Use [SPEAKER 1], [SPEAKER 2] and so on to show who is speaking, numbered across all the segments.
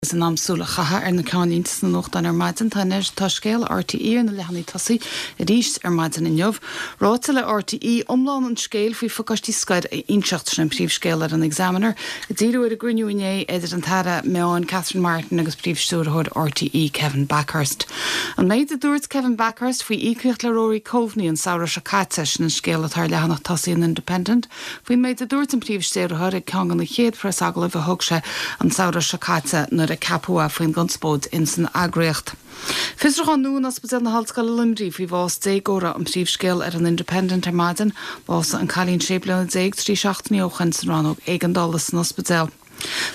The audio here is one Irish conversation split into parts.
[SPEAKER 1] Is in am súil a chaitheamh ar na ceannlínte sna nuachtáin ar maidin. Tá anois, tá scéal RTÉ ar na leathanaigh tosaigh arís ar maidin inniu. Ráite le RTÉ iomlán an scéil faoi phacáistí scoir a inseacht, sin an príomhscéal ar an Examiner, ag díriú ar an gcruinniú inné idir an tAire Meáin Catherine Martin agus Príomh-Stiúrthóir RTÉ Kevin Bakhurst. An méid a dúirt Kevin Bakhurst faoi íocaíocht le Rory Coveney an samhradh seo caite, sin an scéal atá ar leathanach tosaigh an Independent. Faoin méid a dúirt an Príomh-Stiúrthóir ag ceann de na chéad phreasagallaimh a thug sé an samhradh seo caite nuair a ceapadh é faoin gconspóid ins an eagraíocht. Fiosrúchán nua in Ospidéal na hOllscoile Luimnigh faoi bhás déagóra an príomhscéal ar an Independent ar maidin. Bhásaigh an cailín 16 bliana 3 seachtainí ó shoin san rannóg éigeandála san ospidéal.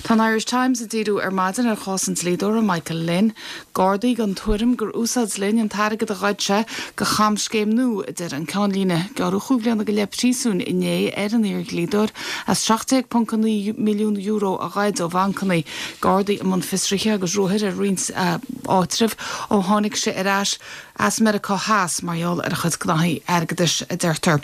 [SPEAKER 1] Tá an Irish Times ag díriú ar maidin ar chás an dlíodóra Michael Lynn. Gardaí den tuairim gur úsáid Lynn an t-airgead a ghoid sé do chamscéim nua, a deir an ceannlíne. Gearradh chúig bhliana go leith príosúin inné ar an iar-dhlíodóir as €17.9 milliún a ghoid ó bhancanna. Gardaí i mbun fiosraithe agus ruathair ar roinnt áitreabh ó tháinig sé ar ais as Meiriceá Theas mar gheall ar a chuid gnaithí airgeadais, a deirtear.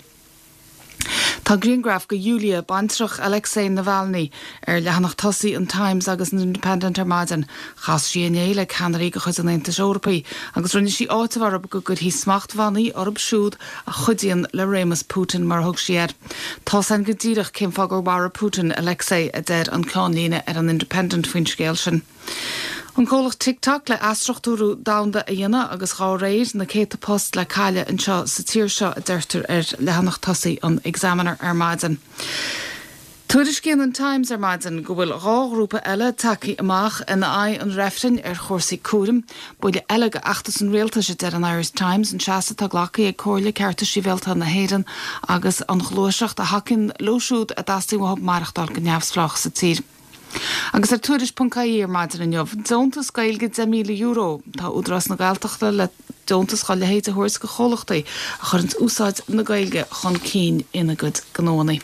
[SPEAKER 1] Tá grianghraf de Yulia, baintreach Alexei Navalny, ar leathanach tosaigh an Times agus an Independent ar maidin. Chas sí inné le ceannairí de chuid an Aontais Eorpaigh agus rinne sí áiteamh orthu go gcuirfí smachtbhannaí orthu siúd a chuidíonn le réimeas Putin, mar a thug sí air. Tá's againn go díreach cén fáth gur mharaigh Putin Alexei, a deir an ceannlíne ar an Independent faoin scéal sin. An comhlacht TikTok le athstruchtúrú domhanda a dhéanamh agus dhá réir, na céadta post le cailleadh anseo sa tír seo, a deirtear ar leathanach tosaigh an Examiner ar maidin. Tuairiscíonn an Times ar maidin go bhfuil 2 ghrúpa eile tagtha amach in aghaidh an reifrinn ar chúrsaí cúraim. Buille eile do fheachtas an rialtais, a deir an Irish Times, an seasamh atá glactha ag Comhairle Cearta Sibhialta na hÉireann agus an ghluaiseacht a thacaíonn leo siúd a dteastaíonn uathu maireachtáil go neamhspleách sa tír. Agus ar Tuairisc.ie ar maidin inniu, deontas Gaeilge €10,000. Tá Údarás na Gaeltachta le deontas dá leithéid a thabhairt do chomhlachtaí a chuireanns úsáid na Gaeilge chun cinn ina gcuid gnóanna.